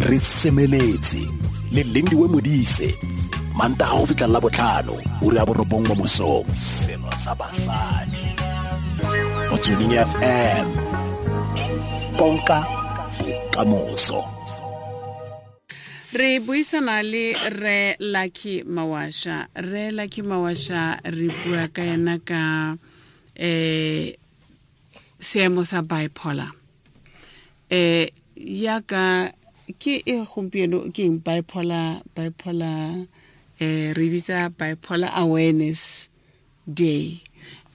Re semeletse le Lindiwe Modise, Mantaga go fitlha la botlhano, ura ya 9 mo mosong. Selo sa basadi Motsweding FM, konka bokamoso. Re buisana le re Lucky Mawasha. Re Lucky Mawasha, re bua ka yena ka seemo sa bipolar. Yaka ke e gompieno ke eng bipolar, re bitsa Bipolar Awareness Day,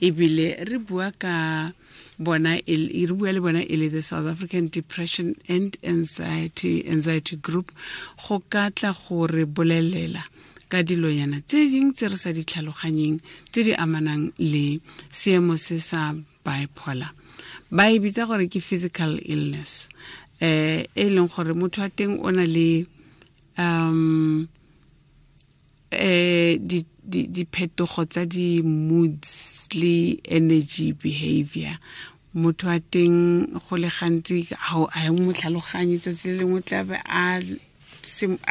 ebile re bua ka bona re bua le bona e le the South African Depression and Anxiety Group, go ka tla go re bolelela ka dilonyana tse ding tse re sa di tlhaloganyeng tse di amanang le seemo se sa bipolar. Ba e bitsa gore ke physical illness, e leng gore motho wa teng o na le diphetogo tsa di-moods le energy behavior. Motho wa teng go le gantsi ga a mo tlhaloganye, tsatsi le lengwe tla be a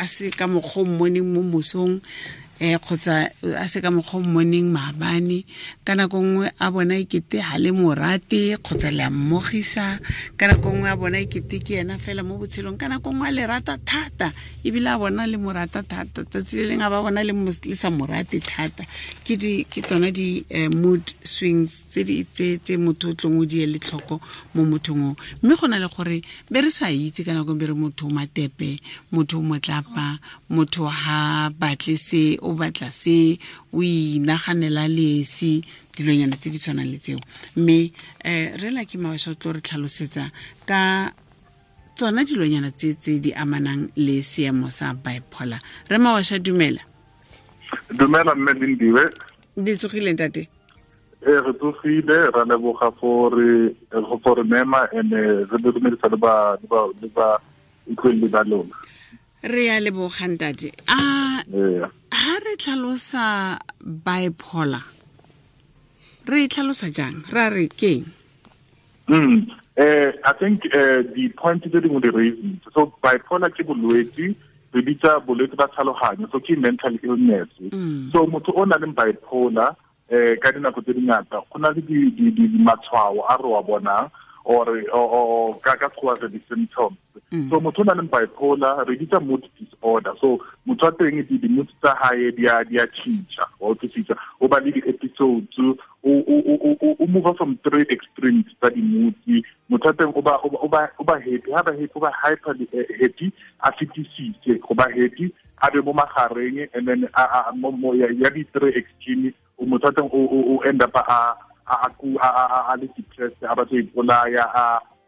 se ka mokgwa o mmoneng mo mosong, kgotsa a se ka mokgwa o mmoneng maabane. Ka nako nngwe a bona ekete ha le morate kgotsa le a mmogisa, ka nako nngwe a bona ekete ke ena fela mo botshelong, ka nako nngwe a le rata thata ebile a bona le morata thata, tsatsi le leng a ba bona le sa morate thata. Ke tsona di mood swings tse motho o tlong o di ele tlhoko mo mothong o. Mme go na le gore be re sa itse ka nako be re motho o matepe, motho o motlapa, motho ha batle se, o batla se, o inaganela lesi, dilonyana tse di tshwanang le tseo. Mme re Lucky Mawasha o tlo re tlhalosetsa ka tsona dilonyana tse di amanang le seemo sa bipolar. Re Mawasha, dumela. Dumela mme Lindiwe. Di tsogile ntate? Re tsogile, ra leboga for re mema ene re dumedisa le ba utlweleli ba lona. Re ya leboga ntate. A ha re tlhalosa bipolar, re tlhalosa jang? Ra re keng? I think the point tse dingwe di raising. So bipolar ke bolwetse, re bitsa bolwetse ba tlhaloganyo, so ke mental illness. So motho o nang le bipolar ka dinako tse dingata go na le di matshwao a re wa bonang or ka ka re di-symptoms. So motho o nang le bipolar re bitsa mood disorder. So motho wa teng di mood tsa hae di a tšhintšha, wa utlwisisa, o ba le di-episodes, o move from three extremes tsa di-moods. Motho wa teng o ba happy, ha ba happy o ba hyper happy, a fetisise go ba happy, a be mo magareng, and then ya di-three extreme motho wa teng o end up a le depressed, a batla ipolaya,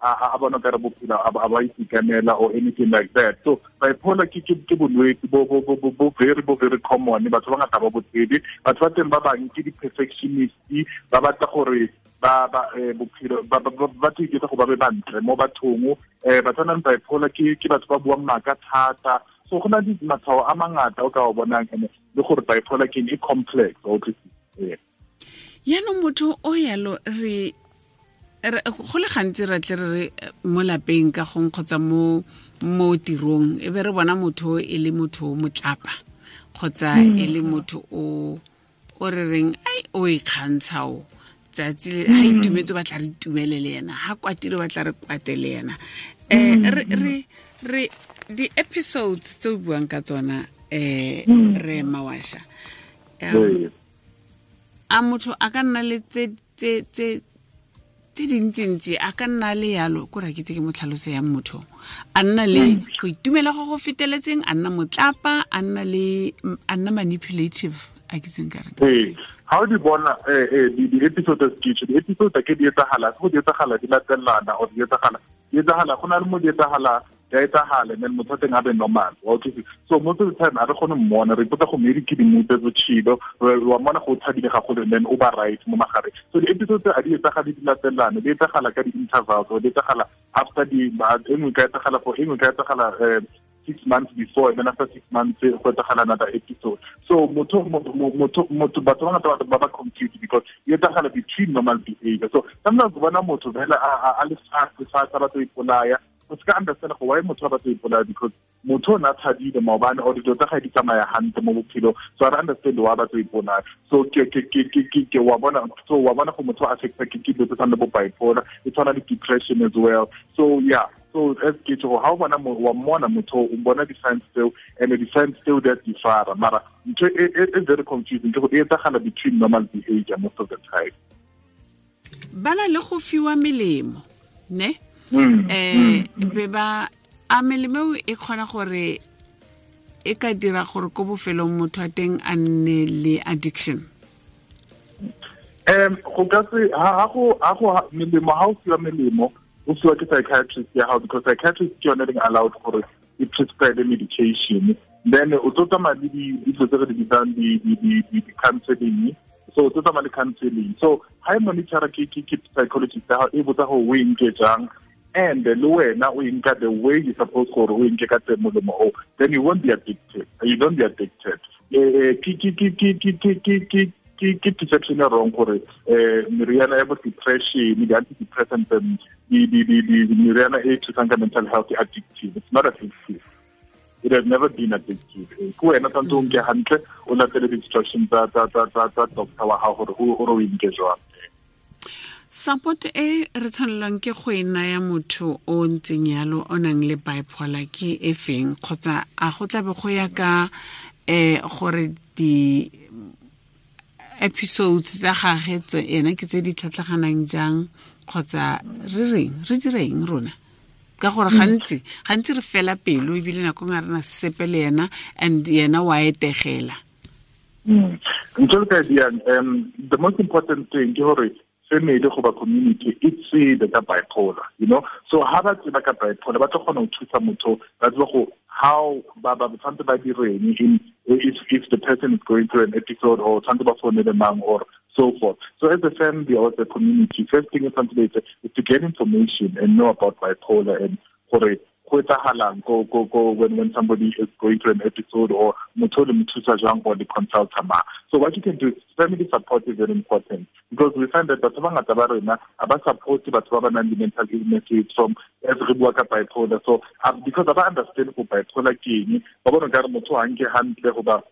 a bona ka re bophelo a ba itekanela or anything like that. So bipolar ke bolwetse bo very common, batho ba ngata ba bo tsebe. Batho ba teng ba bang ke di-perfectionist, ba batla gore ba bophelo ba iketsa go ba be bantle mo bathong. Batho ba nang bipolar ke batho ba buang maaka thata. So go na le matshwao a mangata o ka o bonang, ene le gore bipolar ke e complex. Yaanong motho o yalo re go le gantsi re tle re mo lapeng ka gong kgotsa mo tirong, e be re bona motho e le motho o motlapa kgotsa e le motho o re reng ai o ikgantsha o tsatsi le ha itumetse ba tla re itumele le yena, ha kwatile ba tla re kwate le yena. Re di-episodes tse o buang ka tsona, re Mawasha, a motho a ka nna le tse dintsintsi, a ka nna le yalo ko ra ke tse ke mo tlhaloso ya motho, a nna le go itumela go go feteletseng, a nna motlapa, a nna manipulative, a ke tseng ka reng. Ee, ha o di bona di-episode tse di-episode ke di etsagala, go di etsagala di latelana or di etsagala go na le mo di etsagala ya etsagala, and then motho teng a be normal. So most of the time a re kgone mmona, re ipotsa go maybe ke di-mood tse botshelo, wa mmona go thabile gagolo, and then o ba right mo magareng. So di-episode tse a di etsagale di latelane, di etsagala ka di-intervals, or di etsagala after di e nngwe ka etsagala for e nngwe ka etsagala 6 months before, and then after 6 months go etsagala another episode. So motho batho ba ngata ba ba confused because e etsagala between normal behavior. So sometimes bona motho fela a le fast batho ipolaya. o ska understand go why motho ba batla ipolaya, because motho o na thabile maobane or dilo tsa gae di tsamaya hantle mo bophelo, so I understand why ba batla ipolaya. So ke wa bona, so wa bona go motho a affecta ke dilo tse tshwanang le bo bipolar, e tshwana le depression as well. So yeah, so as ke tšho, ha o bona wa mmona motho, o bona di-signs tseo, and di-signs tseo di a differa, mara ntho e very confusing ke go e etsagala between normal behavior most of the time. Ba na le go fiwa melemo, ne? Be ba a melemo e kgona gore e ka dira gore ko bofelong motho a teng a nne le addiction. Go ka se ha go melemo, ha o fiwa melemo o fiwa ke psychiatrist ya gago, because psychiatrist ke yone leng allowed gore e prescribe medication. Then o tlo tsamaya le dilo tse re di bitsang di-counseling. So o tlo tsamaya le counseling. So ha e monitora ke psychologist ya gago, e botsa gore o e nke jang, and le wena o e nka the way you suppose gore o e nke ka teng molemo o, then you won't be addicted. You don't be addicted. Ke perception e wrong gore meriana ya bo depression, di-antidepressants, meriana e thusang ka mental health e addictive. It's not addictive. It has never been addictive. Ke wena tshwanetse o nke hantle, o latele di-instructions tsa doctor wa gago gore o e nke jwang. Support e re tshwanelwang ke go e naya motho o ntseng yalo o nang le bipolar ke e feng, kgotsa a go tlabe go ya ka gore di episodes tsa gagwe ena ke tse di tlhatlhaganang jang, kgotsa re reng re direng rona? Ka gore gantsi re fela pelo, ebile nako nngwe re na sepe le yena, and yena wa etegela. Ntho e ka diang, the most important thing ke gore family goba community e tsebe ka bipolar, you know. So ha ba tseba ka bipolar, ba tlo kgona ho thusa motho, ba tseba go how ba tshwanetse ba direng in if the person is going through an episode, or tshwanetse ba founele mang, or so forth. So as a family or as a community, first thing is is to get information and know about bipolar and gore go etsagalang go when somebody is going through an episode, or motho le mo thusa jang, or le consulta ma. So what you can do is family support is very important, because we find that batho ba ngata ba rena a ba support batho ba ba nang le mental illnesses from as re bua ka bipolar. So because ba understand go bipolar ke eng, ba bona ka re motho ha nke hantle goba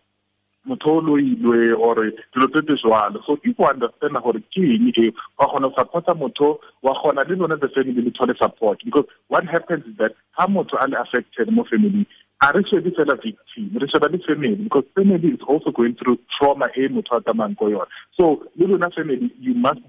motho o loilwe or dilo tse tse jwalo. So if you understand gore ke eng e, wa kgona go supporta motho, wa kgona le lona the family le thole support, because what happens is that ha motho a le affected mo family, a re shebe fela victim, re sheba le family, because family is also going through trauma e motho a tsamayang ko yona. So le lona family, you must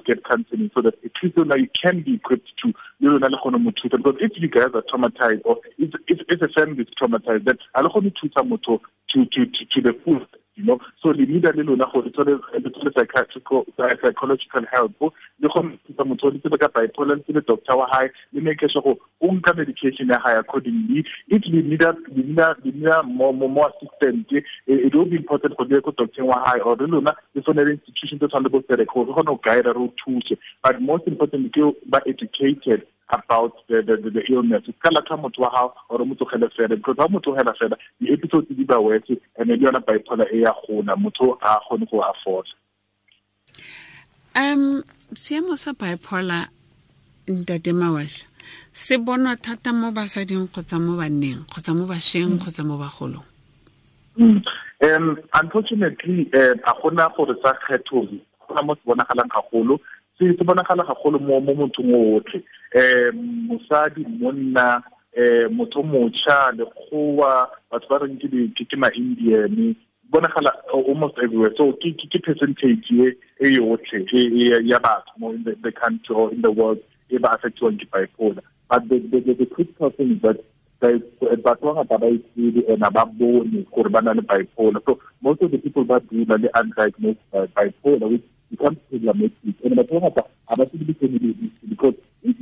get counseling so that at least now you can be equipped to le lona le kgone mo thusa, because if you guys are traumatized, or if a family is traumatized, then a le kgone thusa motho to the full, you know. So le need le lona gore le thole psychological help, le kgone thusa motho le tsebe ka bipolar, le tsebe doctor wa hae, le make sure gore o nka medication ya hae accordingly. If le need more assistance, it will be important for the doctor wa hae or le lona le tsone institution tse tshwanang le bo Serek gore re kgone go guide re o thuse. But most importantly ke ba educated about the illness. Ka latlha motho wa hao or motho tlogele fela, because ha motho tlogela fela di episodes di ba worse, and le yona bipolar e ya gona, motho a kgone go afford. Seemo sa bipolar, Ntate Mawasha, se bonwa thata mo basading kgotsa mo banneng kgotsa mo bašweng kgotsa mo bagolong? Unfortunately, a gona gore sa kgetho, gona mo se bonagalang gagolo, se bonagala gagolo mo mothong otlhe, mosadi, monna, motho motšha, lekgowa, batho ba reng ke ma-Indian, bonagala almost everywhere. So ke percentage e yotlhe ya batho mo in the country or in the world e ba affectiwang ke bipolar. But the critical thing is that batho ba ngata ba itsebe and ba bone gore ba na le bipolar. So most of the people ba dula le undiagnosed bipolar, which becomes problematic. And batho ba ngata ha ba tsebe family history, because if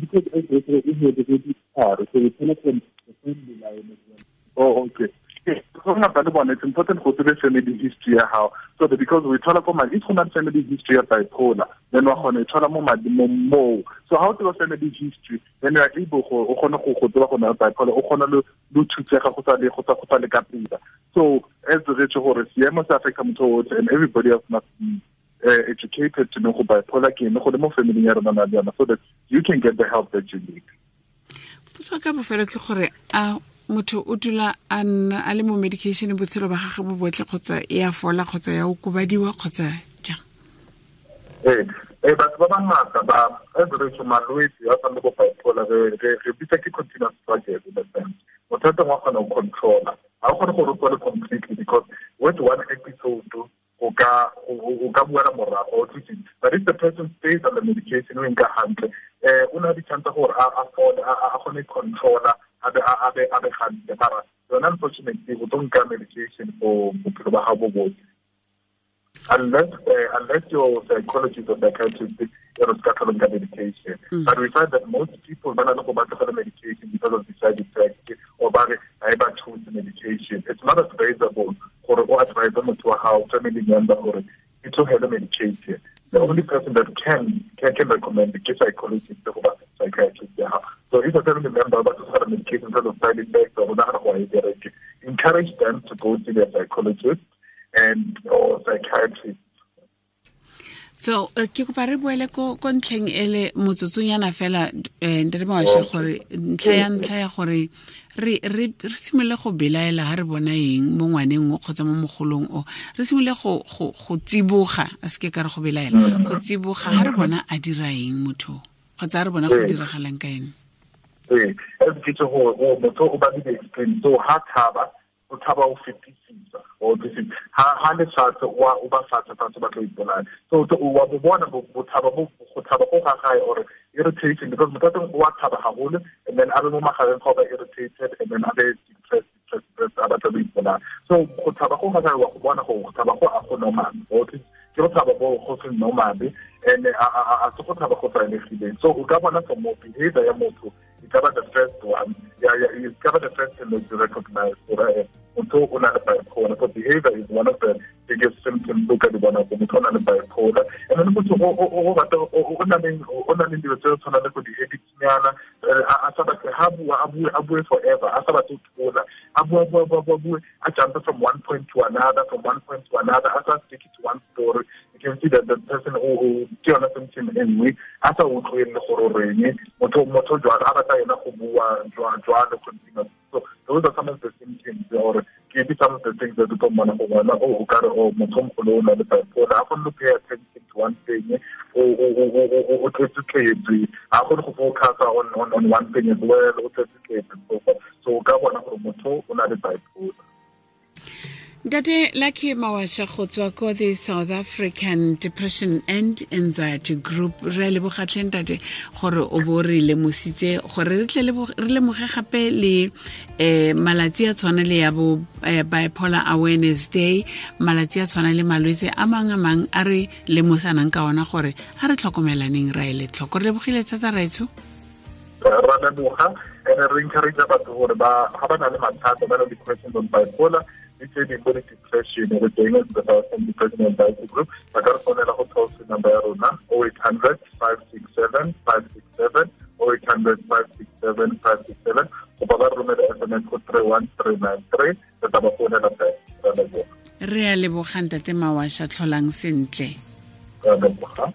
because so we tell from the family line as well. Oh, okay. It's important go tsebe family history ya hao, so that because we thola ko madi, if go na family history ya bipolar, then wa kgona e thola mo madi mo. So how to family history, then you are able go o kgone go tseba go na bipolar, o kgona le thusega go sa le ka pela. So as re tse gore seemo se affecta motho otlhe, and everybody else must be educated to know go bipolar ke eng, go le mo family ya rona na le yona, so that you can get the help that you need. Potso ka bofelo ke gore a motho o dula a nna a le mo medication botshelo ba gagwe bo botlhe kgotsa e a fola kgotsa ya okobadiwa kgotsa jang? Ee, batho ba bangata ba average malwetse a tshwana le bo bipolar re bitsa ke continuous struggle in a sense. Motho a teng wa kgona go controla, ga o kgone gore o tswale completely because with one episode o ka buela morago, but if the person stays on the medication o nka hantle, o na le chance gore a fole, a kgone controla, a be hantle. Mara yona unfortunately o tlo nka medication for bophelo ba gago bo botlhe unless your psychologist or psychiatrist is medication. But we find that most people don't go back to the medication because of the side effects or by choose medication. It's not advisable for or advisable to a family member or to have a medication. The only person that can recommend is psychologist or psychiatrist. So if a family member but to have a medication because of side effects or not, encourage them to go to their psychologist and or psychiatrist. So ke kopa re boele ko ntlheng ele motsotsonyana fela ntate Mawasha gore ntlha ya gore re simolole go belaela ha re bona eng mo ngwaneng o kgotsa mo mogolong o, re simolole go tsiboga, a seke ka re go belaela, go tsiboga ha re bona a dira eng motho kgotsa re bona go diragalang ka ene. Ee, as ke tse gore motho o ba le explain, so ha thaba o thaba o fetisisa o tsitsi ha le fatshe o ba fatshe ba tlo ipolaya. So o wa bo bona bo thaba bo go thaba go ga gae or irritation because motho teng o wa thaba haholo and then a be mo magareng ga ba irritated and then a be depressed a batla go ipolaya. So go thaba go ga gae wa go bona go thaba go a go normal, o ke go thaba bo go se normal and a se go thaba go tlwaelegileng. So o ka bona from behavior ya motho e ka ba the first one, yeah, it's cover the first thing that you recognize. Motho o na le bipolar. So behavior is one of the biggest symptoms o ka di bona go motho o na le bipolar. And then motho o na le dilo tse tshwana le go di-habitsnyana, a sa batle ha bua a bue forever, a sa batle go thola, a bua a jump from one point to another, from one point to another, a sa stick to one story. You can see that the person o ke yona symptom e nngwe, a sa utlwele gore o reng motho jwalo a batla yena go bua jwalo continuous. So those are some of the symptoms or maybe some of the things that you don't want to go o ka re o motho mogolo o na le bipolar, a kgone go pay attention to one thing, o tletse, a kgone go focus on one thing as well, o tletse. So o ka bona gore motho o na le bipolar. Ntate Lucky Mawasha go tswa ko the South African Depression and Anxiety Group, re leboga tlhe ntate gore o bo re lemositse gore re tle re lemoge gape le malatsi a tshwana le ya bo Bipolar Awareness Day, malatsi a tshwana le malwetse a mang a mang a re lemosanang ka ona gore a re tlhokomelaneng ra ele tlhoko. Re lebogile thata raetsho. Ra leboga and re encourage batho gore ba ga ba na le mathata, ba na le questions on bipolar, it's a depression, we're doing it with our Depression and Anxiety Group. Ba ka re founela go toll free number ya rona 0800 567 567, 0800 567 567, goba ba re romela SMS go 31393, re tla ba founela back. Re leboga. Re a leboga ntate Mawasha, tlholang sentle. Re leboga.